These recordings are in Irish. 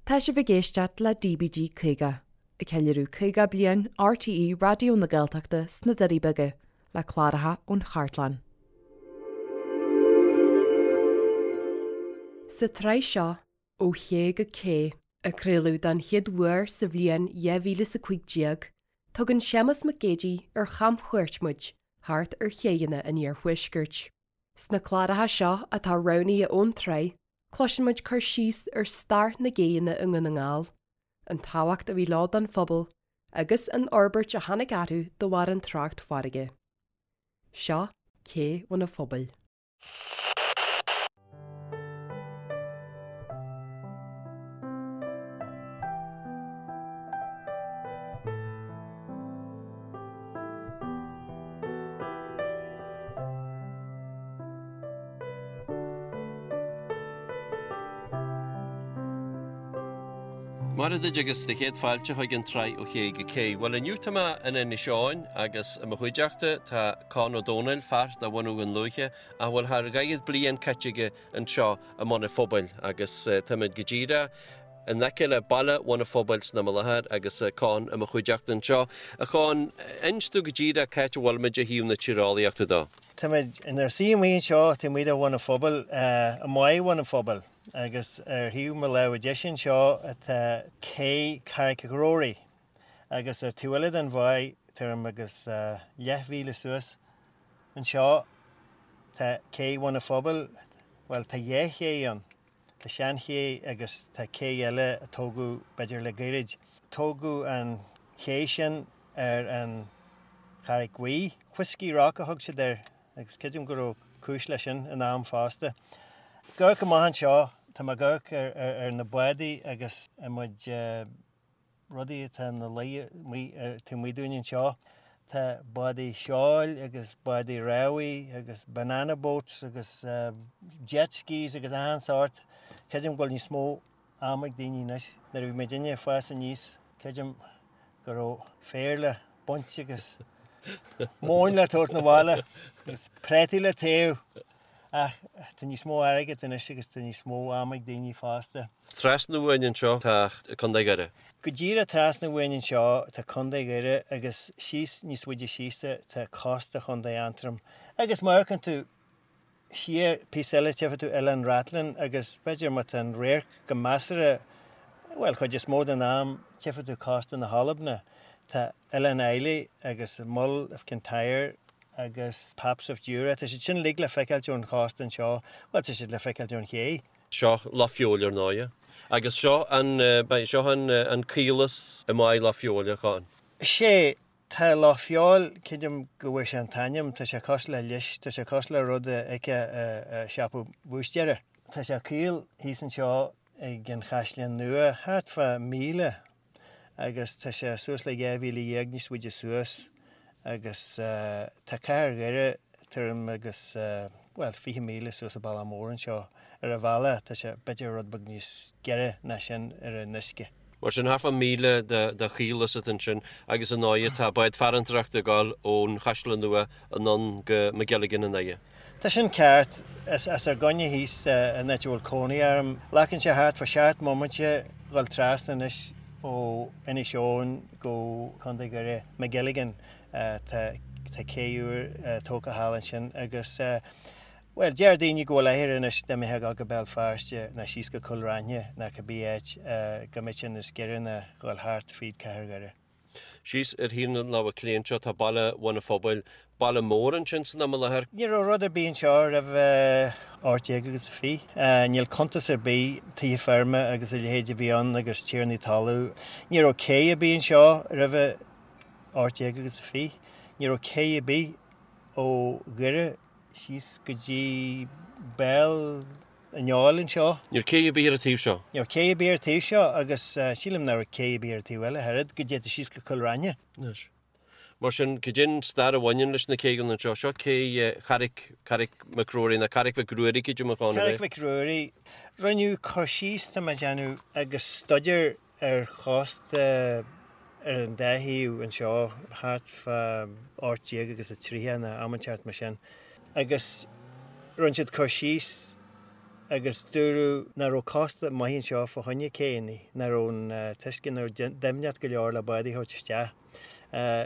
Tá sibh ag éisteacht le DBG 50, ag ceiliúradh 50 bliain RTÉ Raidió na Gaeltachta sna Doirí Beaga, le cláracha ón chartlann. Sa tsraith seo, Ó Ché go Cé, a craoladh don chéad uair sa bhliain 2015, tugann Séamus Mac Géidigh ar chamchuairt muid thart ar chéidheanna an iarthuaiscirt. Sna cláracha seo atá roghnaithe ón tsraith, cloiseann muid cur síos ar stair na gcéidheanna i nDún na nGall, an tábhacht a bhí leo don phobal agus an fhorbairt a tháinig orthu de bharr an trácht farraige. Seo Cé Bhun an Phobail. Maith duit agus do chéad fáilte chuig an tsraith Ó Ché go Cé. Bhuel inniu tá mé in Inis Eoghain agus i mo chuideachta tá Conn Ó Domhnaill, fear de bhunadh Dhún Lúiche a bhfuil thar dhaichead bliain caite aige anseo i mBun an Phobail agus táimid go díreach in aice le baile Bhun an Phobail san am i láthair agus Conn i mo chuideachta anseo. A Chonn, inis domh go díreach c'áit a bhfuilimid ó thaobh na tíreolaíochta de. Táimid inár suí amuigh anseo taobh amuigh de Bhun an Phobail, i mBáigh Bhun an Phobail, agus ar thaobh mo láimhe deise anseo tá cé Charraig Ghrory agus ar taobh eile den bháigh, tuairim agus leathmhíle suas anseo, tá cé Bhun an Phobail, bhuel tá dhá ché ann. Tá seanché agus tá cé eile a tógadh b'fhéidir le gairid. Tógadh an ché sin ar an Charraig Bhuí. Whiskey Rock a thug siad air agus creidim go raibh cúis leis sin in am fosta. Ag amharc amach anseo, tá mé ag amharc ar na bádaí agus an méid rudaí atá ina luí amuigh taobh amuigh dúinn anseo. Tá bádaí seoil agus bádaí rámhaí agus banana boats agus jet skis agus achan sórt. Creidim go bhfuil níos mó ama ag daoine anois. Nuair a bhí muidinne ag fás aníos, creidim go raibh féar le baint agus móin le tabhairt 'na bhaile agus préataí le téamh. Ach tá níos mó airgid anois agus tá níos mó ama ag daoine fosta. Trasna uainn anseo tá Contae Dhoire. Go díreach trasna uainn anseo tá Contae Dhoire agus síos níos faide síos tá cósta Chontae Aontroim. Agus má amharcann tú siar píosa eile tchífidh tú Oileán Rathlin agus b'fhéidir má tá an radharc go measartha, bhuel chuid is mó den am, tchífidh tú cósta na hAlban. Tá Oileán Islay agus Mull of Kintyre agus Paps of Jura, tá siad sin uilig le feiceáilt ón chósta anseo, bhuel tá siad le feiceáilt ón ché. Seo Loch Feabhail ar ndóighe. Agus seo an, seo an, an caolas i mBáigh Loch Feabhail, a Chonn. Sea, tá Loch Feabhail, creidim go bhfuair sé an t-ainm, tá sé cosúil le lios, tá sé cosúil le rud a fheicfeá i siopa búistéara. Tá sé caol thíos anseo ag an Chaisleán Nua, thart fá 1,000 agus tá sé suas le 12,000 níos faide suas agus tá cathair Dhoire tuairim agus, bhuel, 20 míle suas an bealach mór anseo. Ar an bhealach, tá sé b'fhéidir rud beag níos giorra ná sin ar an uisce. Mar sin, thart fá 1,000 de chaolas atá ansin agus ar ndóighe tá bád farantóireachta ag dul ón Chaisleán Nua anonn go Magilligan i nDoire. Tá sin ceart. As ár gcoinne thíos an áit a bhfuil cónaí orm. Glacann sé thart fá sheacht mbomaite dhul trasna anois ó Inis Eoghain go Contae Dhoire, Magilligan. Tá cé úr tógtha thall ansin agus, bhuel, deir daoine go bhfuil athair anois dá mbeifeá ag dul go Béal Feirste ná síos go Cúil Raithin ná cibé áit go mbeadh sé níos giorra ná dhul thart fríd Cathair Dhoire. Síos ar thaobh na láimhe clé anseo tá baile Bhun an Phobail, baile mór ansin san am i láthair. Ní raibh rud ar bith anseo roimh 18 agus a 20. Níl cuntas ar bith, tithe feirme agus a leithéid a bhí ann agus tiarnaí talún. Ní raibh cé ar bith anseo roimh 18 agus a 20. Ní raibh cé ar bith ó Dhoire síos go dtí béal an Fheoil anseo. Ní raibh cé ar bith ar an taobh seo. Ní raibh cé ar bith ar an taobh seo agus sílim nach raibh cé ar bith ar an taobh eile ach oiread, go dtéann tú síos go Cill Raithne. Anois. Mar sin, cad é an stair a bhaineann leis na céidheanna anseo? Seo cé Charraig, Carraig McRory, nó Carraig Mhic Ruairí, creidim a Chonn, ab ea? Carraig Mhic Ruairí. Rinneadh cur síos, tá mé ag déanamh, agus staidéar ar chósta ar an dá thaobh anseo thart fá 18 agus a 30 nó am inteacht mar sin agus rinne siad cur síos. Agus dúradh nach raibh cósta maith anseo fá choinne céanna, nach raibh an t-uisce, nach raibh doimhneacht go leor le bádaí a thabhairt isteach.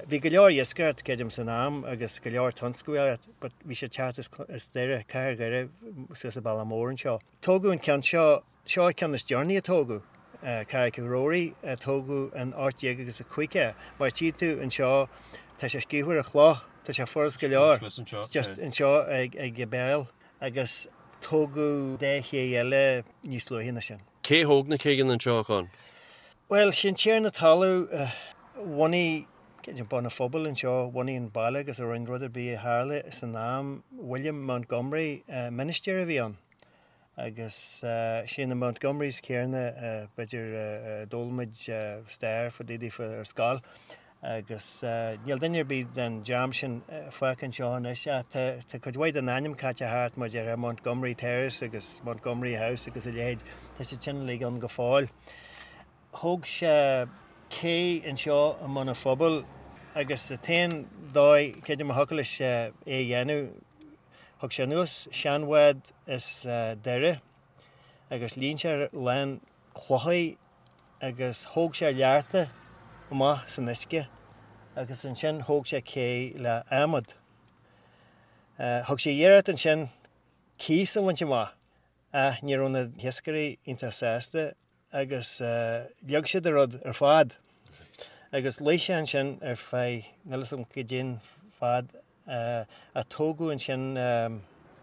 Bhí go leor iascaireacht, creidim, san am agus go leor tionsclaíocht but bhí sé ag teacht as Doire, cathair Dhoire suas an bealach mór anseo. Tógadh an ceann seo, seo an ceann is deireanaí a tógadh, Carraig Ghrory, a tógadh in 1850. Mar tchí tú anseo, tá sé scríofa ar an chloch, tá sé furast go leor, just anseo ag an béal. Agus tógadh dá ché eile níos luaithe ná sin. Cé thóg na céidheanna anseo, a Chon? Bhuel, sin tiarna talún a bhunaigh creidim Bun an Phobail anseo, bhunaigh an baile agus a rinne rud ar bith a tharla san am, William Montgomery, ministir a bhí ann. Agus sé na Montgomerys céanna, b'fhéidir, a d'fhoghlaim muid stair fá dtaobh daofa ar scoil. Agus níl duine ar bith den dream sin fágtha anseo anois ach tá cuid mhaith den ainm caite thart mar déarfá Montgomery Terrace agus Montgomery House agus a leithéid, tá siad sin uilig ann go fóill. Thóg sé cé anseo i mBun an Phobail agus an t-aon dóigh, creidim, a thiocfadh leis é a dhéanamh, thug sé anuas seanbhád as Doire agus líon sé lán clochaí agus thóg sé learta amach san uisce agus ansin thóg sé cé le adhmad. Thug sé iarracht ansin cíos a bhaint amach ach ní raibh na hiascairí iontach sásta agus leag siad an rud ar fad agus luigh sé ansin ar feadh níl 'fhios agam goidé'n fad a tógadh ansin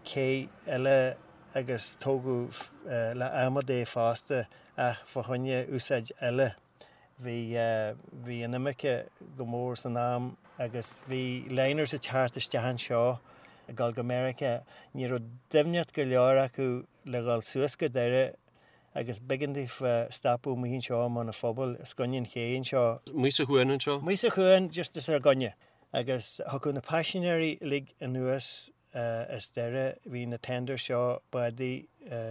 cé eile agus tógadh le adhmad é fosta ach fá choinne úsáid eile. Bhí bhí an imirce go mór san am agus bhí liners ag teacht isteach anseo ag dul go Meiriceá. Ní raibh doimhneacht go leor acu le dhul suas go Doire agus b'éigean daofa stopadh amuigh anseo i mBun an Phobail, os coinne an ché anseo. Amuigh sa chuan anseo? Amuigh sa chuan, just os ár gcoinne. Agus thiocfadh na paisinéirí uilig anuas as Doire, bhí na tenders seo, bádaí,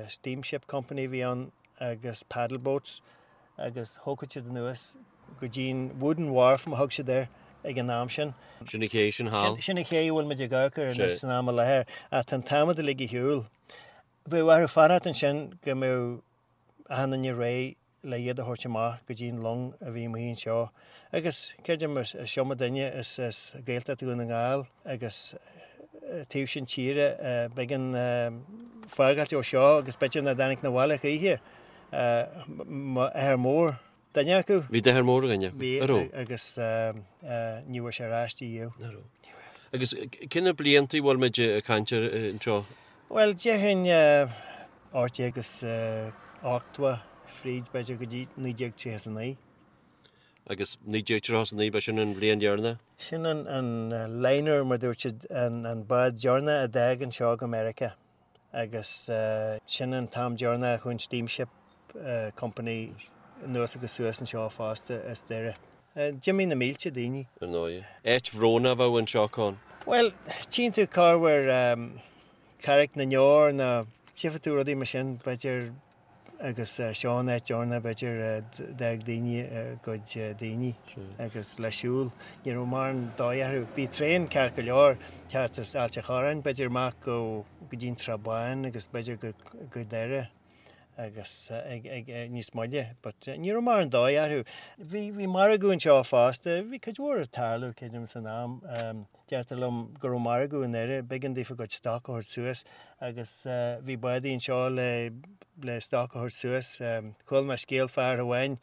steamship company a bhí ann agus paddle boats agus thógfadh siad anuas go dtí'n wooden wharf mar thug siad air ag an am sin. Sin an ché sin thall. Sin an ché a bhfuil muid ag amharc air anois san am i láthair ach tá an t-adhmad uilig ar shiúl. Bheadh orthu fanacht ansin go mbeadh achan duine réidh le iad a thabhairt amach go dtí an long a bhí amuigh anseo. Agus creidim is iomdha duine as Gaeltacht Dhún na nGall agus taobh sin tíre b'éigean fágáilt ó seo agus b'fhéidir nach dtáinig 'na bhaile choíche. M'athair mór duine acu. Bhí d'athair mór ar dhuine acu, Bhí an raibh? agus ní bhfuair sé ar ais ariamh. Nach raibh. Agus cé na blianta a bhfuil muid ag caint air anseo? Bhuel, déarfainn 1880 fríd b'fhéidir go dtí 1939. Agus 1939, ba sin an bhliain dheireanach? Sin an liner, mar dúirt siad, an bád deireanach a d'fhág anseo go Meiriceá. Agus sin an t-am deireanach a chuaigh an Steamship Company anuas agus suas anseo fosta as Doire. D'imigh na mílte daoine. Ar ndóigh. Áit bhrónach a bheadh anseo, Con. Bhuel, tchíonn tú corruair Carraig na nDeor nó tchífidh tú rudaí mar sin, b'fhéidir, agus seo an áit deireanach, b'fhéidir, a d'fhág daoine a gcuid daoine agus le siúl. Ní raibh mórán dóigh orthu. Bhí traein ceart go leor, teacht as Ailt an Chorráin, b'fhéidir amach go dtí an Trá Báin agus b'fhéidir go Doire agus ag níos moille but ní raibh mórán dóigh orthu. Bhí bhí margadh anseo fosta, bhí cuid mhór ag tarlú creidim san am. Deirtear liom go raibh margadh i nDoire, b'éigean daofa a gcuid stoc a thabhairt suas agus bhí bádaí anseo le le stoc a thabhairt suas. Chuala mé scéal fear amháin,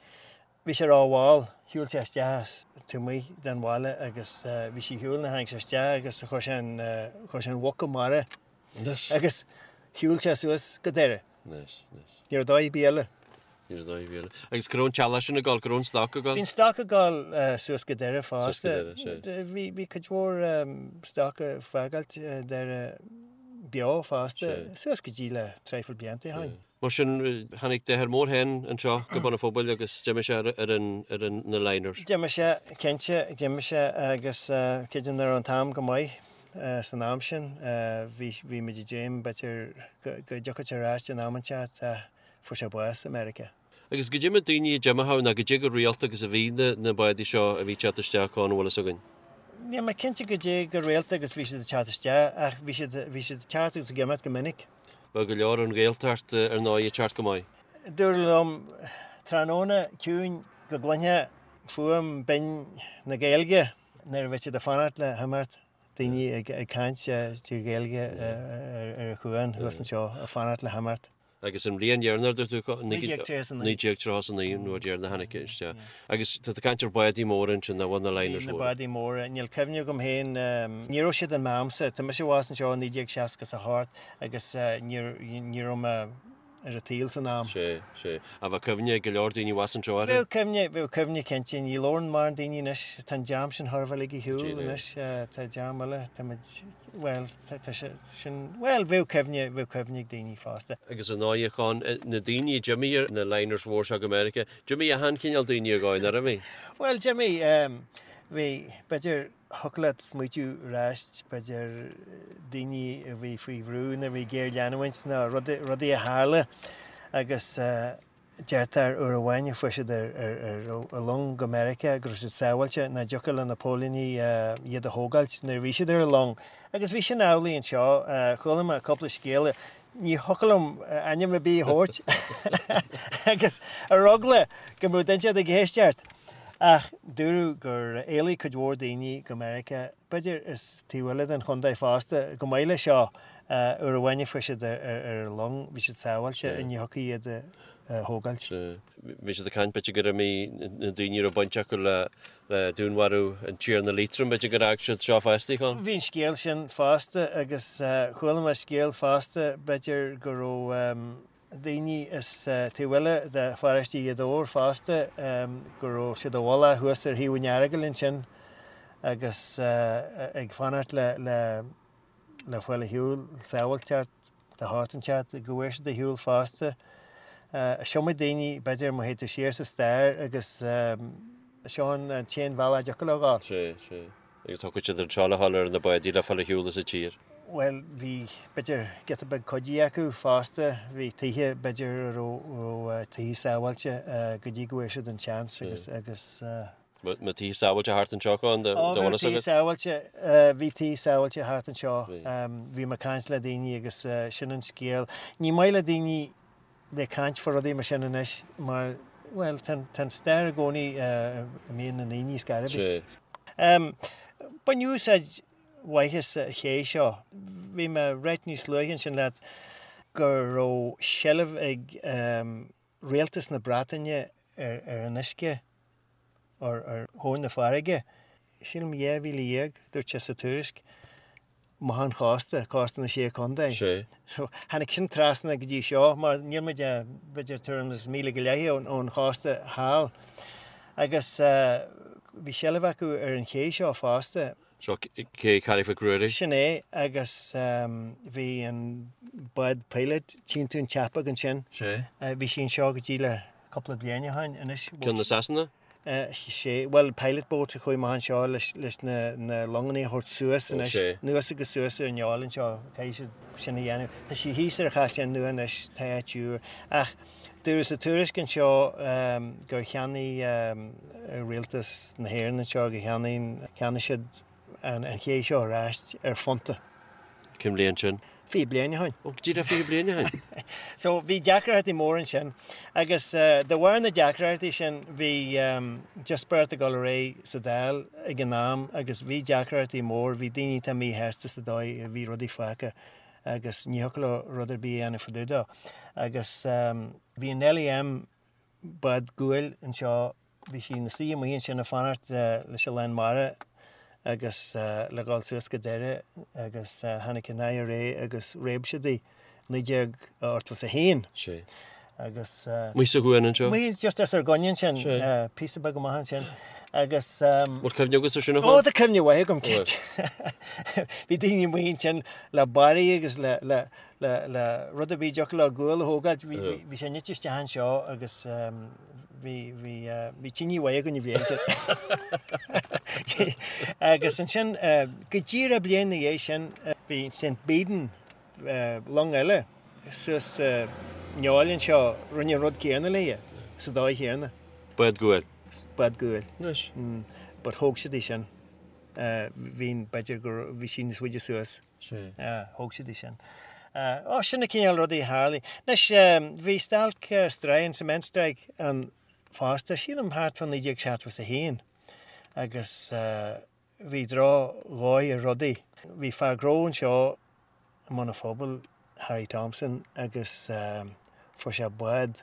bhí sé rómhall, shiúil sé isteach taobh amuigh den bhaile agus bhí sé ar shiúl nuair a tháinig sé isteach agus chuir sé an chuir sé an mhuc i mbarra agus shiúil sé suas go Doire. Anois, anois. Ní raibh dóigh ar bith eile. Ní raibh dóigh ar bith eile. Agus cá raibh an t-eallach sin ag dul, cá raibh an stoc ag dul? Bhí an stoc ag dul suas go Doire fosta. Suas go Doire, sea. Bhí, bhí cuid mhór stoc ag fágáilt Doire beo fosta, suas go dtí le traidhfil blianta ó shin. Mar sin, tháinig d'athair mór féin anseo go Bun an Phobail agus d'imigh sé ar an, ar an, na liners. D'imigh sé, cinnte, d'imigh sé agus creidim nach raibh an t-am go maith. San am sin, bhí, bhí muid ag dréim, b'fhéidir, go, go dtiocfadh sé ar ais in am inteacht ach fuair sé bás i Meiriceá. Agus goidé na daoine a d'imigh ann, nó goidé chomh rialta agus a bhí na, na bádaí seo a bhí ag teacht isteach ann, an bhfuil fhios againn? Níl mé cinnte goidé chomh rialta agus bhí siad ag teacht isteach ach bhí siad, bhí siad ag teacht agus ag imeacht go minic. Bheadh go leor ón Ghaeltacht ar ndóigh ag teacht go maith. Dúradh liom tráthnóna ciúin go gcluinfeá fuaim binn na Gaeilge nuair a bheadh siad ag fanacht le himeacht, daoine ag caint trí Ghaeilge ar an chuan thuas anseo ag fanacht le himeacht. Agus an bhliain dheireanach, dúirt tú, 1939, 1939 an uair dheireanach a tháinig isteach. Agus tá tú ag caint ar bádaí móra ansin, nach bhfuil na liners móra. Na bádaí móra, níl cuimhne agam féin, ní raibh siad in m'amsa, tá mise abhus anseo i 1968 agus ní raibh mé ar an tsaol san am. Sea, sea. Ach bheadh cuimhne ag go leor daoine abhus anseo orthu. Bheadh cuimhne, bheadh cuimhne cinnte. Ní labhrann mórán daoine anois, tá an dream sin chóir a bheith uilig ar shiúl anois, tá dream eile, táimid, bhuel, tá sé sin, bhuel, bheadh cuimhne, bheadh cuimhne ag daoine fosta. Agus ar ndóigh, a Chon, na daoine a d'imigh ar na liners mhór seo go Meiriceá, d'imigh achan chineál daoine ar dhóigh, nár imigh? Bhuel, d'imigh, bhí, b'fhéidir, thiocfadh leat smaoitiú ar ais, b'fhéidir, daoine a bhí faoi bhrú nuair a bhí géarleanúint nó rudaí a tharla agus deirtear uair amháin a fuair siad ar long go Meiriceá go raibh siad sábháilte, nach dtiocfadh le na póilíní iad a thógáilt nuair a bhí siad ar an long. Agus bhí sin amhlaidh anseo. Chuala mé cúpla scéal, ní thiocfadh liom ainm ar bith a thabhairt agus ar eagla go mbeadh duine inteacht ag éisteacht. Ach dúradh gur éalaigh cuid mhór daoine go Meiriceá, b'fhéidir as taobh eile den chontae fosta, chomh maith leis seo. Uair amháin a fuair siad ar an long, bhí siad sábháilte, ní thiocfadh iad a thógáilt. Bhí siad ag caint, b'fhéidir gur imigh na daoine a raibh baint acu le dúnmharú an Tiarna Liatroim, b'fhéidir gur fhág siad seo fosta, Con. Bhí an scéal sin fosta agus chuala mé scéal fosta, b'fhéidir go raibh daoine as taobh eile de pharóiste Ghaoth Dobhair fosta, go raibh siad i bhfolach thuas ar thaobh an Earagail ansin agus ag fanacht le le fáil ar shiúl, sábháilteacht de shórt inteacht, go bhfuair siad ar shiúl fosta. Is iomaí daoine, b'fhéidir, má théid tú siar sa stair agus seo an t-aon bhealach a dtiocfadh leo a ghabháil. Sea, sea. Agus thiocfadh siad anseo le dhul ar na bádaí le fáil ar shiúl as an tír. Bhuel, bhí, b'fhéidir, giota beag cuidí acu fosta. Bhí tithe, b'fhéidir, a raibh tithe sábháilte go dtí go bhfuair siad an seans agus, agus. Bhí tithe sábháilte thart anseo, Con, do bhfuil fhios agat? Bhí tithe sábháilte, bhí tithe sábháilte thart anseo. Bhí mé ag caint le daoine agus sin an scéal. Ní maith le daoine bheith ag caint fá rudaí mar sin anois mar, bhuel, tá an stair i gcónaí i mbéal na ndaoine ar scor ar bith. Baineadh úsáid mhaith as an ché seo. Bhí mé ag ráit níos luaithe ansin leat go raibh seilbh ag Rialtas na Breataine ar an uisce, ar thóin na farraige. Sílim 12,000, dúirt sé sa tuairisc, amach ón chósta, cósta na Sé Chontae. Sé. So, tháinig sin trasna go dtí seo, mar níl muid ach, b'fhéidir, tuairim is míle go leith ón chósta thall. Agus bhí seilbh acu ar an ché seo fosta. Seo cé Carraig Mhic Ruairí. Sin é, agus bhí an bád Pilot, tchíonn tú an tseapóg ansin. Sé. Bhí sí anseo go dtí le cúpla bliain ó shin anois. Ceann na Sasana? Sé, bhuel Pilot boat a chuaigh amach anseo leis na longanna a thabhairt suas anois. Sé. Anuas agus suas ar an fheoil anseo, caithfidh siad sin a dhéanamh. Tá sí thíos ar an Chaisleán Nua anois, tá áit úr. Ach Dúradh sa tuairisc anseo gur cheannaigh Rialtas na hÉireann anseo, gur cheannaigh, cheannaigh siad an ché seo ar ais ar phunta. Cén bhliain sin? 20 bliain ó shin. Ó, go díreach 20 bliain ó shin. So bhí deacrachtaí móra ansin agus de bharr na deacrachtaí sin bhí díospóireacht ag dul ar aghaidh sa Dáil ag an am agus bhí deacrachtaí mór, bhí daoine atá míshásta sa dóigh a bhí rudaí fágtha. agus ní thiocfadh leo rud ar bith a dhéanamh fá dtaobh dó. Agus bhí an Nellie M bád guail anseo, bhí sí ina suí amuigh ansin ag fanacht leis an lán mara agus le dhul suas go Doire agus tháinig an IRA agus réab siad í, 1981. Sé. Agus. Amuigh sa chuan anseo? Amuigh just os ár gcoinne ansin, píosa beag amach ansin. Agus. Bhfuil cuimhne agat ar sin a Chon? Ó, tá cuimhne mhaith agam, cinnte. Bhí daoine amuigh ansin le barraí agus le, le, le, le rud ar bith a dtiocfadh leo gual a thógáilt. Bhí, bhí, bhí sé nite isteach anseo agus bhí, bhí, bhí tine mhaith againn an bhliain sin. Agus ansin, go díreach bliain ina dhiaidh sin, bhí St. Baedan, long eile suas sa fheoil anseo, rinne an rud céanna léi, sa dóigh chéanna. Bád guail. Bád guail. Anois. But thóg siad í sin. Bhí, b'fhéidir go raibh, bhí sí níos faide suas. Sea. Thóg siad í sin. Ó, sin na cineál rudaí a tharlaigh. Anois, bhí stailc stroighin, cement strike, ann fosta, sílim thart fá 1971 agus bhí drochdhóigh ar rudaí. Bhí fear gnó anseo i mBun an Phobail, Harry Thompson, agus fuair sé bád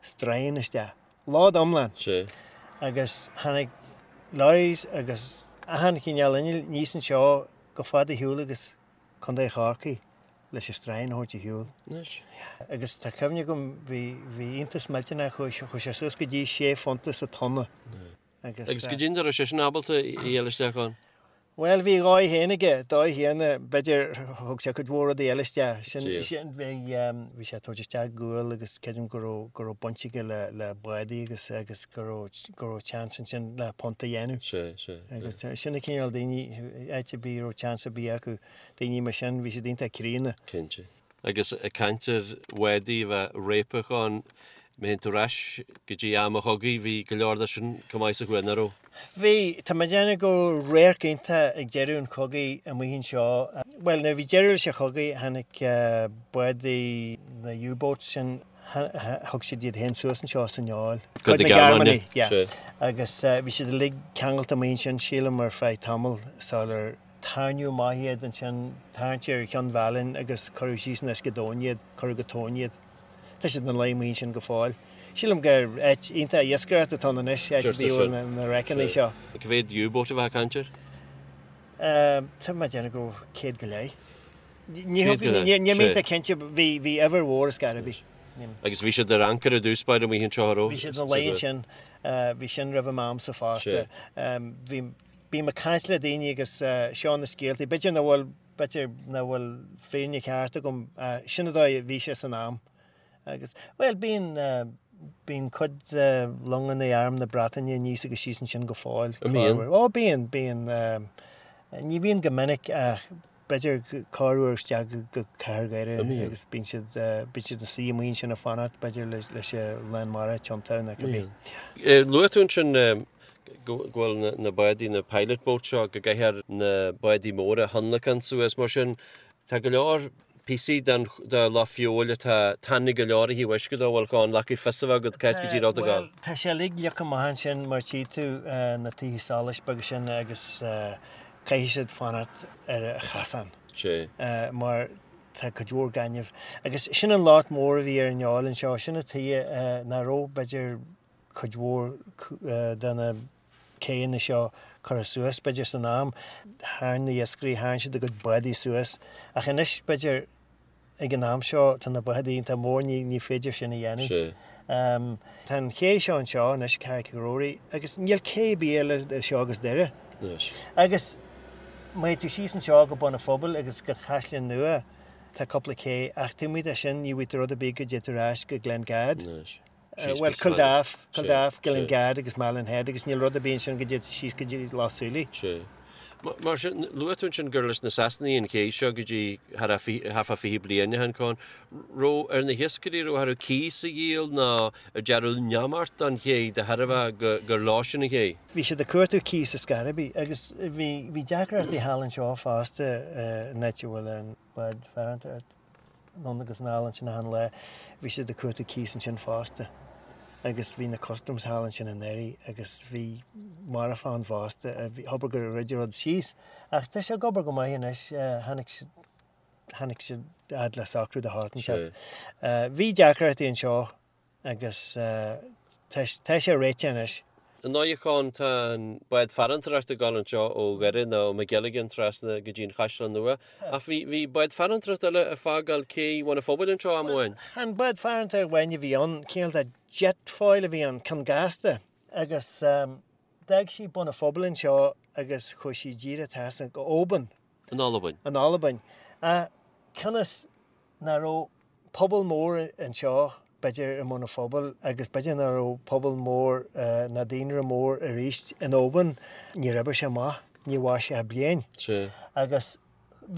stroighin isteach, load iomlán. Sea. Agus tháinig lorries agus achan chineál innill aníos anseo chomh fada ar shiúl agus Contae Chorcaí leis an stroighin a thabhairt ar shiúl. Anois. Agus tá cuimhne agam, bhí, bhí iontas millteanach, chuaigh, chuaigh sé suas go dtí sé phunta sa tonna. Agus. Agus goidé an dóigh a raibh seisean ábalta a fháil isteach ann? Bhuel, bhí a dhóigh féin aige, dóigh chéanna, b'fhéidir, thug sé cuid mhór rudaí eile isteach. Sin, sin, bhí, bhí sé ag tabhairt isteach gual agus creidim go raibh, go raibh baint aige le, le bádaí agus, agus go raibh, go raibh chance ansin le punt a dhéanamh. Sea, sea. Agus sin an cineál daoine, áit ar bith a raibh chance ar bith acu, daoine mar sin, bhí siad iontach críonna. Cinnte. Agus ag caint ar bhádaí a bheith réabtha ann, má théann tú ar ais go dtí am an chogaidh, bhí go leor de sin chomh maith sa chuan, nach raibh? Bhí. Tá mé ag déanamh go raibh radharc iontach ag deireadh an chogaidh amuigh anseo. Bhuel, nuair a bhí deireadh leis an chogaidh, tháinig bádaí na U-boats sin, thug siad iad féin suas anseo san Fheoil. Cuid na Gearmáine, yeah. Agus bhí siad uilig ceangailte amuigh ansin, sílim, ar feadh tamaill sular Tarraingeadh amach iad ansin, tarraingt ar Chionn Mheálainn agus cuireadh síos in uisce domhain iad, cuireadh go tóin iad. Tá siad ina luí amuigh ansin go fóill. Sílim gur áit iontach iascaireachta atá ann anois, áit a bhíodh na wreckanna seo. Cá mhéad U-boat a bheifeá ag caint air? Tá mé ag déanamh go raibh 100 go leith. Níl mé iontach cinnte, bhí uimhir mhór ar scor ar bith. Agus bhí siad ar ancaire i dtús báire amuigh anseo, an raibh? Bhí siad ina luí ansin, bhí sin roimh m'amsa fosta. Bhí Bím ag caint le daoine agus seo na scéaltaí, b'fhéidir nach bhfuil, b'fhéidir nach bhfuil fírinne ceart agam, sin an dóigh a bhí sé san am. Agus, bhuel, bíonn, bíonn cuid de longanna Arm na Breataine aníos agus síos ansin go fóill. An mbíonn? Ó, bíonn, bíonn. Ní bhíonn go minic ach b'fhéidir corruair isteach go Cathair Dhoire agus bíonn siad, bíonn siad ina suí amuigh ansin ag fanacht b'fhéidir leis an lán mara a tiontú nó cibé. Luaigh tú ansin go bhfuil na bádaí, na pilot boats seo, go gcaithfear na bádaí móra a thionlacan suas mar sin. Tá go leor píosaí den de Loch Feabhail atá tanaí go leor ó thaobh uisce de, bhfuil Con, le fios a bheith agat cá háit go díreach ag dul. Bhuel, tá sé uilig leagtha amach ansin mar tchí tú na tithe solais beaga sin agus caithfidh siad fanacht ar an chasán. Sea. Mar tá cuid mhór gainimh. Agus sin an locht mór a bhí ar an Fheoil anseo, sin an tuige nach raibh, b'fhéidir, cuid mhór de na céanna seo curtha suas, b'fhéidir, san am. Tharraing na hiascairí, tharraing siad a gcuid bádaí suas. Ach anois, b'fhéidir, Ag an am seo tá na bádaí iontach mór, ní féidir sin a dhéanamh. Tá an ché seo anseo anois, Carraig Ghrory, agus níl cé ar bith eile idir seo agus Doire. Agus má théann tú síos anseo go Bun an Phobail agus go Caisleán Nua, tá cúpla cé, ach taobh amuigh de sin ní bhfaighidh tú rud ar bith go dté tú ar ais go Glengad. Bhuel, Culdaff, Culdaff, Glengad agus Malin Head agus níl rud ar bith ansin go dté tú síos go dtí Loch Súilí. Sea. Mar sin, luaigh tú ansin gur leis na Sasanaigh an ché seo go dtí thart fá 20 bliain ó shin, Con. Raibh ar na hiascairí, raibh orthu cíos a dhíol nó ar dearnadh neamart don ché de thairbhe gur leosan an ché? Bhí siad ag cuartú cíos ar scor ar bith agus bhí deacrachtaí thall anseo fosta in áit a bhfuil an bád farantóireachta. anonn agus anall ansin achan lá. Bhí siad ag cuartú cíos ansin fosta agus bhí na customs thall ansin i nDoire agus bhí marfach ann fosta. Abair gur dhruid an rud síos. Ach tá sé ag obair go maith anois. Tháinig siad, tháinig siad fhad le socrú de shórt inteacht. Bhí deacrachtaí anseo agus tá sé réitithe anois. Ar ndóigh, a Chon, tá an bád farantóireachta ag dul anseo ó Dhoire nó ó Magilligan trasna go dtí an Chaisleán Nua. Ach bhí, bhí bád farantóireachta eile ag fágáil cé Bhun an Phobail anseo am amháin. An bád farantóireachta amháin a bhí ann, cineál de jet foil a bhí ann, ceann gasta. Agus d'fhág sí Bun an Phobail anseo agus chuaigh sí díreach trasna go Oban. In Albain. In Albain. Ach cionn is nach raibh pobal mór anseo, b'fhéidir, i mBun an Phobail agus b'fhéidir nach raibh pobal mór ná daonra mór arís in Oban, níor oibrigh sé amach, ní mhair sé ach bliain. Sea. Agus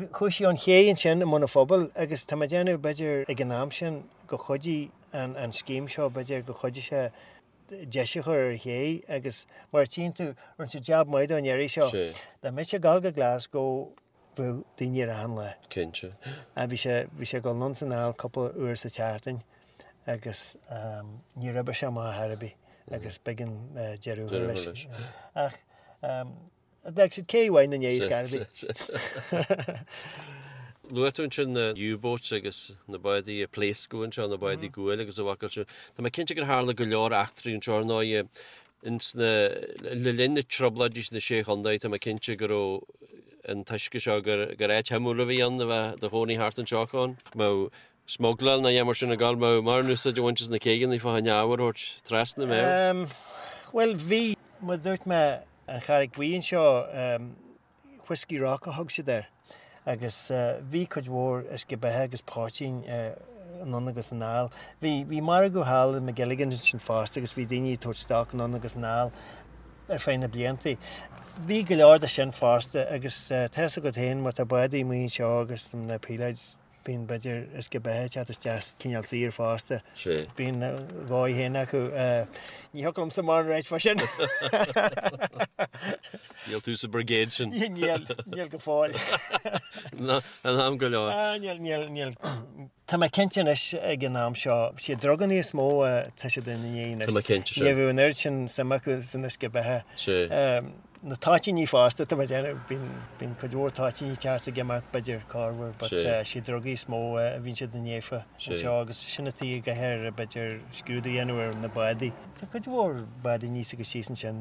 chuaigh sí ón ché ansin i mBun an Phobail agus tá mé ag déanamh, b'fhéidir, ag an am sin go chuidigh an scéim seo, b'fhéidir go chuidigh sé deis a chur ar an ché agus mar a tchíonn tú, rinne siad jab maith dó an iarraidh seo. Sea. Dá mbeadh sé ag dul go Glasgow. Bheadh daoine air achan lá. Cinnte. Bhí sé, bhí sé ag dul anonn 's anall cúpla uair sa tseachtain agus níor oibrigh sé amach ar chor ar bith agus b'éigean deireadh a chur leis. Ach d'fhág siad cé mhaith na ndiaidh ar scor ar bith. Luaigh tú ansin na U-boats agus na bádaí a pléascadh anseo, na bádaí guail agus a bhfacal sin. Tá mé cinnte gur tharla go leor eachtraí anseo ar ndóigh ins na, le linn na trioblóidí sna Sé Chontae, tá mé cinnte go raibh an t-uisce seo, gur, gur áit shuimiúil a bhí ann a bheith do chónaí thart anseo Con. Mbeadh smugláil nó a dhath mar sin ag gabháil, mbeadh mórán úsáid á bhaint as na céidheanna fá choinne ábhar a thabhairt trasna, mbeadh? Bhuel bhí, mar a dúirt mé, an Charraig Bhuí anseo, Whiskey Rock a thug siad air agus bhí cuid mhór uisce beatha agus poitín anonn agus anall. Bhí, bhí margadh thall i McGilligan's ansin fosta agus bhí daoine ag tabhairt stoc anonn agus anall ar feadh na blianta. Bhí go leor de sin fosta agus tá fhios agat féin má tá bádaí amuigh anseo agus na píléid, Bíonn, b'fhéidir, uisce beatha ag teacht isteach cineál saor fosta. Bíonn a dhóigh féin acu. Ní thiocfadh liomsa mórán a ráit fá sin. Níl tú sa brigade sin. Níl, níl go fóill. In am go leor. Ah, níl, níl, níl. Tá mé cinnte anois ag an am seo, siad druganna is mó atá siad ina ndiaidh anois. Tá mé cinnte, sea. Ní bheadh an oiread sin suim acu san uisce beatha. Sea. Na toitíní fosta, tá mé ag déanamh, bíonn, bíonn cuid mhór toitíní ag teacht ag imeacht, b'fhéidir, corruair, but siad drugaí is mó a bhíonn siad ina ndiaidh fá anseo agus sin an tuige go gcaithfear, b'fhéidir, scrúdú a dhéanamh ar na bádaí. Tá cuid mhór bádaí aníos agus síos ansin,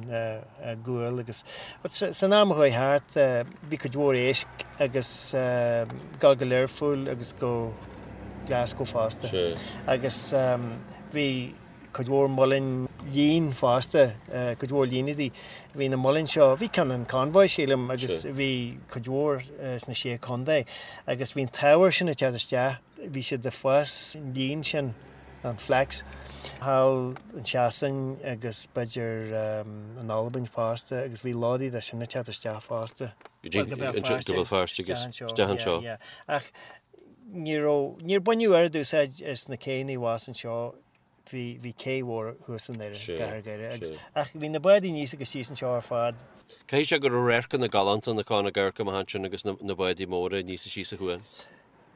gual agus, but san am a chuaigh thart, bhí cuid mhór éisc agus dul go Learpholl agus go Glasgow fosta. Agus bhí. cuid mhór muileann lín fosta, cuid mhór líneadaí. Bhí na muileann seo, bhí ceann in Convoy sílim agus bhí cuid mhór sna Sé Chontae agus bhí an t-ábhar sin ag teacht isteach, bhí siad ag fás an lín sin, an flax, thall in Sasain agus b'fhéidir in Albain fosta agus bhí lódaí de sin ag teacht isteach fosta. Go dtí go Béal Feirste agus isteach anseo. Ach ní raibh, níor baineadh oiread úsáid as na céanna abhus anseo bhí, bhí cé mhór thuas i nDoire, gCathair Dhoire agus, ach bhí na bádaí aníos agus síos anseo ar fad. Caithfidh sé go raibh radharcanna galánta ann a Con ag amharc amach ansin agus na, na bádaí móra aníos is síos an chuan.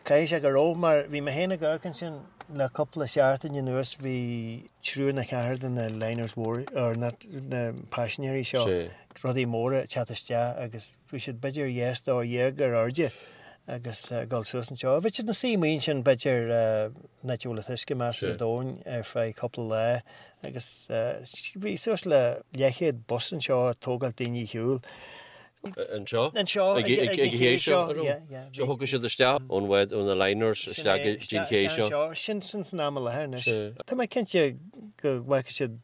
Caithfidh sé go raibh mar bhí mé féin ag amharc ansin le cúpla seachtain anuas bhí triúr nó ceathrar de na liners mhór, or not, na paisinéirí seo, rudaí móra ag teacht isteach agus bhí siad b'fhéidir dhá stór dhéag ar airde agus ag dul suas anseo. Bhí siad ina suí amuigh ansin b'fhéidir an áit a bhfuil an t-uisce measartha domhain ar feadh cúpla lá agus bhí suas le leathchéad bus anseo ag tógáil daoine ar shiúl. Anseo? Anseo, ag an ché seo, an raibh? So thiocfadh siad isteach ón bhád, ó na liners isteach go dtí an ché seo. Sin san am i láthair anois. Tá mé cinnte go bhfaca siad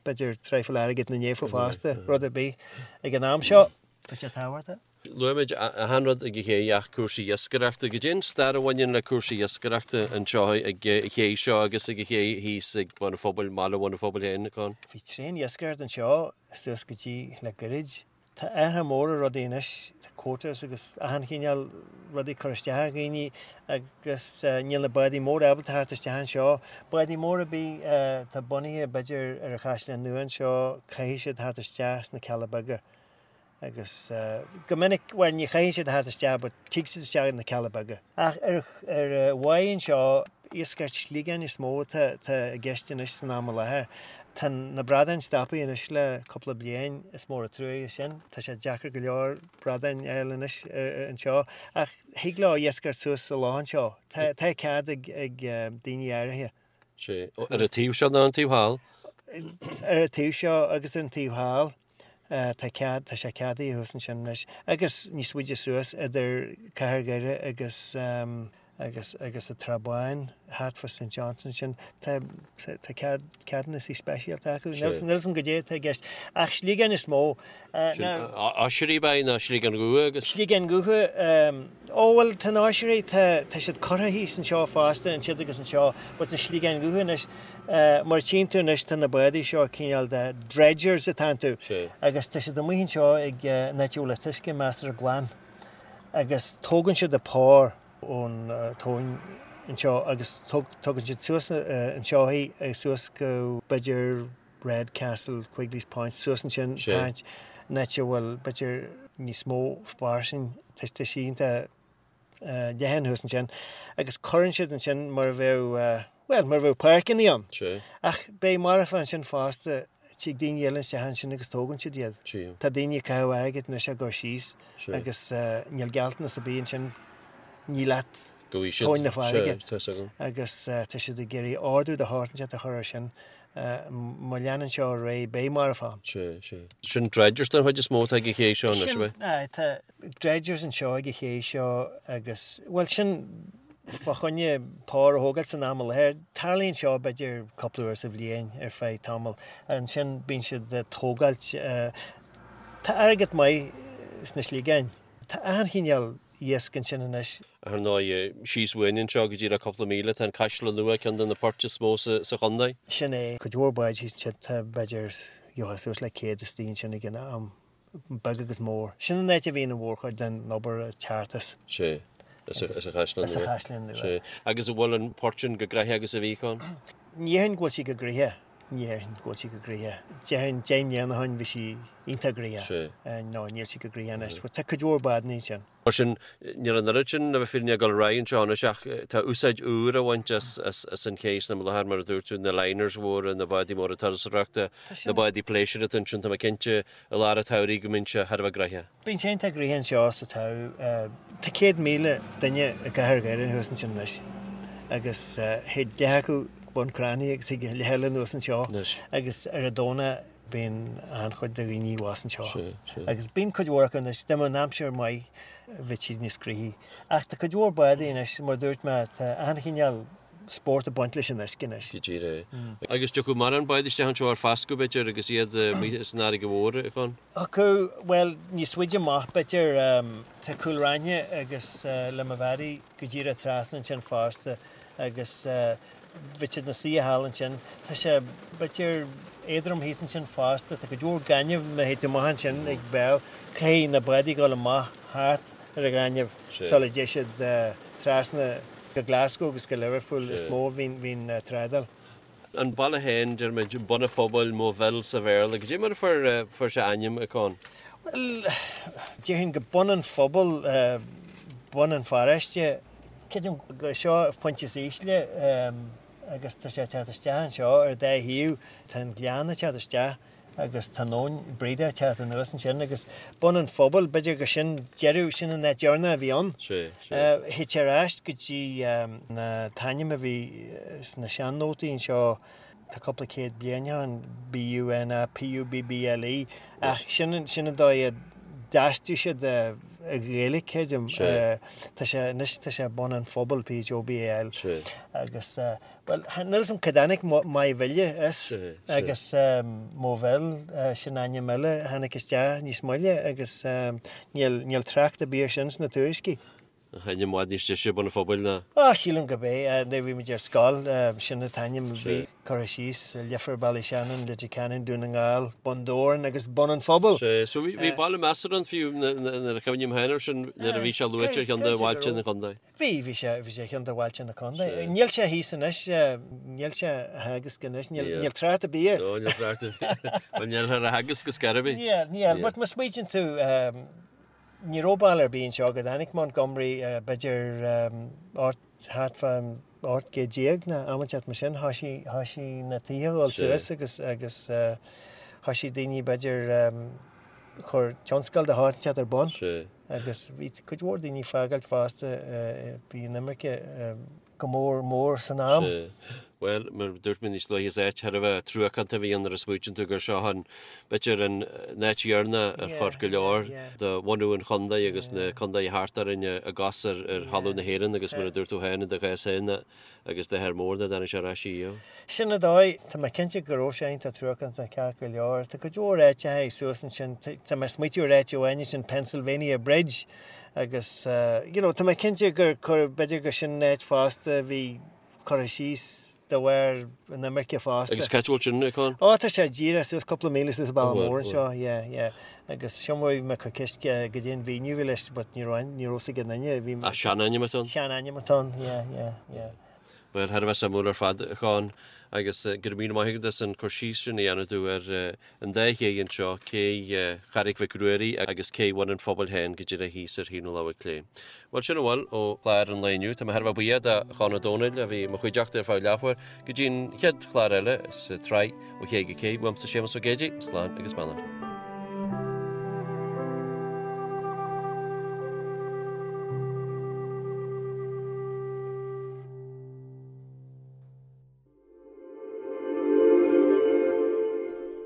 b'fhéidir traidhfil airgid ina ndiaidh fosta, rud ar bith ag an am seo. Tá sé tábhachtach. Luaigh muid achan rud ag an ché ach cúrsaí iascaireachta. Goidé an stair a bhaineann le cúrsaí iascaireachta anseo ag an ché seo agus ag an ché thíos ag Bun an Phobail, mbaile Bhun an Phobail féin, Con? Bhí tréan-iascaireacht anseo suas go dtí le goirid. Tá athruithe mór ar rudaí anois, tá quotas agus achan chineál rudaí curtha isteach ar dhaoine agus níl na bádaí móra ábalta theacht isteach anseo. Bádaí móra ar bith atá bunaithe b'fhéidir ar an Chaisleán Nua anseo, caithfidh siad theacht isteach sna Cealla Beaga agus go minic, bhuel ní chaithfidh siad theacht isteach but tig siad isteach na Cealla Beaga. Ach ar ar an bháigh anseo, iascaireacht sliogáin is mó atá i gceist anois san am i láthair. Tá na bradáin stoptha anois le cúpla bliain, is mór an truaighe sin. Tá sé deacair go leor bradáin a fháil anois anseo. Ach thig leo iascaireacht suas sa loch anseo. Tá cead ag daoine áirithe. Sea. Ar an taobh seo nó an taobh thall? Ar an taobh seo agus ar an taobh thall. Tá cead, tá sé ceadaithe thuas ansin anois. Agus níos faide suas idir Cathair Dhoire agus, agus, agus an Trá Báin, thart fá St John's ansin, tá, tá cead, ceadúnasaí speisialta acu. Níl, níl 'fhios a'm goidé atá i gceist. Ach sliogáin is mó. Sin oisrí ab ea nó sliogáin dhubha agus. Sliogáin dhubha, ó bhuel tá na hoisrí, tá, tá siad curtha thíos anseo fosta, ansiúd agus anseo, but na sliogáin dhubha anois, Mar a tchíonn tú anois tá na bádaí seo cineál de dredgers atá iontu agus tá siad amuigh anseo ag an áit a bhfuil an t-uisce measartha glan agus tógann siad an pár ón tóin anseo agus tugann siad suas anseo í agus suas go b'fhéidir Redcastle, Quigley's Point, suas ansin tarraingt an áit a bhfuil b'fhéidir. níos mó fairsing, tá sí iontach leathan thuas ansin agus cuireann siad ansin mar a bheadh, bhuel, mar a bheadh páirceanna ann. Ach beidh marbhán ansin fosta, tig daoine eile isteach ansin agus tógann siad iad. Tá daoine ag caitheamh airgid anois á gcur síos agus níl gealltanas ar bith ansin, ní leat tóin na farraige. Agus tá siad ag iarraidh ordú de shórt inteacht a chur air sin. Má leanann seo ar aghaidh beidh marbhán. Sin dredgers den chuid is mó atá ag an ché seo anois, ab ea? Tá dredgers anseo ag an ché seo agus, bhuel, sin fá choinne pór a thógáil san am i láthair. Tarlaíonn seo b'fhéidir cúpla uair sa bhliain ar feadh tamaill. Ansin bíonn siad ag tógáilt, tá airgead maith sna sliogáin. Tá achan chineál iasc ansin anois. Ar ndóigh, síos uainn anseo go díreach cúpla míle tá an Caisleán Nua, ceann de na poirt is mó sa chontae. Sin é. Cuid mhór báid thíos ansin, tá b'fhéidir, gheofá suas le 100 istigh ansin ag an am. beag agus mór. Sin an áit a bhíonn an mhórchuid den obair ag teacht as. Sea. As an Chaisleán Nua. As an Chaisleán Nua. Sea. Agus an bhfuil an port sin chomh gnoitheach agus a bhí, Con? Ní déarfainn go bhfuil sí chomh gnoitheach. Ní déarfainn go bhfuil sí chomh gnoitheach. Déarfainn 10 mbliana ó shin bhí sí iontach gnoitheach. Sea. No, níl sí chomh gnoitheach anois. Tá cuid mhór bádanna ansin. Mar sin, níl an oiread sin, le bheith fírinneach, ag dul ar aghaidh anseo anois ach tá úsáid úr á bhaint as an ché san am i láthair, mar a dúirt tú, na liners mhóra, na bádaí móra turasóireachta, na bádaí pléisiúir atá ansin, tá mé cinnte i lár an tsamhraidh go mbíonn sé thar a bheith gnoitheach. Bíonn sé iontach gnoitheach anseo sa tsamhradh. Tá 100,000 duine i gcathair Dhoire thuas ansin anois agus théid leath acu go Bun Cranncha agus thig leath eile anuas anseo agus ar an Domhnach Bíonn an-chuid de dhaoine abhus anseo agus bíonn cuid mhór acu anois, dá mbeadh an aimsir maith bheadh siad níos gnoithí. Ach tá cuid mhór bádaí anois, mar a dúirt mé, tá achan chineál spórt ag baint leis an uisce anois. Go díreach. Agus tiocfaidh mórán bád isteach anseo ar fascadh, b'fhéidir, agus iad amuigh san fharraige mhór, a Chon? Thiocfadh, bhuel, níos faide amach, b'fhéidir. Tá Cúil Raithin agus Limavady go díreach trasna ansin fosta agus bheadh siad ina suí thall ansin. Tá sé, b'fhéidir, éadrom thíos ansin fosta. Tá cuid mhór gaineamh má théid tú amach ansin ag béal. Caithfidh na bádaí dul amach thart ar an ghaineamh sula dté siad trasna go Glasgow agus go Liverpool is mó a bhíonn trádáil. An baile féin, deirimid, Bun an Phobail, Moville sa Bhéarla. Cad é mar a fuair sé a ainm, a Con? Bhuel, déarfainn go Bun an Phobail, bun an pharóiste. Creidim gur seo an pointe is ísle agus tá sé ag teacht isteach anseo ar an dá thaobh. Tá an gleann ag teacht isteach agus tá an abhainn Breda ag teacht anuas ansin agus Bun an Phobail, b'fhéidir gur sin deireadh, sin an áit deireanach a bhí ann. Sea, sea. Théid sé ar ais go dtí an t-ainm a bhí sna sean-nótaí anseo, tá cúpla céad bliain ó shin, B-U-N-A P-U-B-B-L-E, ach sin sin an dóigh a d'aistrigh siad i Ghaeilge, creidim. Tá sé, anois tá sé Bun an Phobail, P-H-O-B-A-L. Agus, bhuel, níl 'fhios a'm cá dtáinig Maigh Bhile as agus Moville, sin ainm eile a tháinig isteach níos moille agus níl, níl trácht ar bith air sin sna tuairiscí. Ainm i bhfad níos deise Bun an Phobail ná. Á, sílim gurb é. Nuair a bhí muid ar scoil, sin an t-ainm a bhí curtha síos, Leifear, Ballyshannon, Leitir Ceanainn, Dún na nGall, Bun Dobhráin agus Bun an Phobail. Sea, so bhí baile measartha ann fiú nuair a chuimhním féin air sin, nuair a bhí sé luaite ar cheann de bhailte an chontae. Bhí, bhí sé, bhí sé ar cheann de bhailte na contae. Níl sé thíos anois, níl sé á theagasc anois, níl trácht ar bith air. No, níl trácht ar bith. Bhuel, níl ar a theagasc ar scor ar bith. Níl, níl, but má smaoitíonn tú, Ní raibh baile ar bith anseo go dtáinig Montgomery, b'fhéidir thart fán 18 céad nó am inteacht mar sin, thoisigh, thoisigh na tithe a dhul suas agus, agus thoisigh daoine b'fhéidir chur tionscal de shórt inteacht ar bun agus bhí cuid mhór daoine ag fágáilt fosta, bhí an imirce. go mór mór san am. Sea. Bhuel, mar a dúirt mé níos luaithe, is áit thar a bheith truacánta a bhí ann nuair a smaoitíonn tú gur seo an, b'fhéidir, an áit dheireanach ar chuir go leor de bhunú an chontae agus na contaetha thart orainn a gcos ar thalamh na hÉireann agus mar a dúirt tú féin i do chás féin agus d'athair mór nach dtáinig sé ar ais riamh. Sin an dóigh. Tá mé cinnte go raibh sé iontach truacánta ceart go leor. Tá cuid mhór áiteacha suas ansin. Tá mé ag smaoitiú ar áit amháin ansin, Pennsylvania Bridge. Agus, you know, tá mé cinnte gur cuireadh, b'fhéidir gur sin an áit fosta a bhí curtha síos de bharr an imirce fosta. Agus cá háit a bhfuil sin, a Con? Ó, tá sé díreach suas cúpla míle suas an bealach mór anseo, yeah, yeah. Agus sin mar a bhí mé ag cur ceist goidé an mhíniú a bhí leis, but ní raibh, ní raibh 'fhios ag aon duine, bhí. Ach seanainm atá ann? Seanainm atá ann, yeah, yeah, yeah. Bhuel, thar a bheith suimiúil ar fad, a Chon, agus go raibh míle maith agat as an cur síos sin a dhéanamh domh ar an dá ché anseo, cé Charraig Mhic Ruairí agus cé Bhun an Phobail féin go díreach thíos ar thaobh na láimhe clé. Bhuel, sin a bhfuil ó chlár an lae inniu. Tá mé thar a bheith buíoch de Chon Ó Domhnaill a bhí i mo chuideachta ar feadh leathuair go dtí an chéad chlár eile sa tsraith Ó Ché go Cé. Uaimse Séamus Ó Géidigh, slán agus beannacht.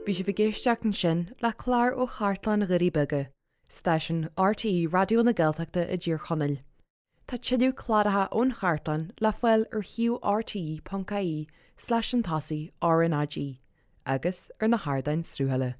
Bhí sibh ag éisteacht ansin le clár ó Chartlann Dhoirí Beaga, stáisiún RTÉ Raidió na Gaeltachta i dTír Chonaill. Tá tuilleadh cláracha ón chartlann le fáil ar shuíomh rte.ie slash an tosaigh RnaG agus ar na hardáin sruthála.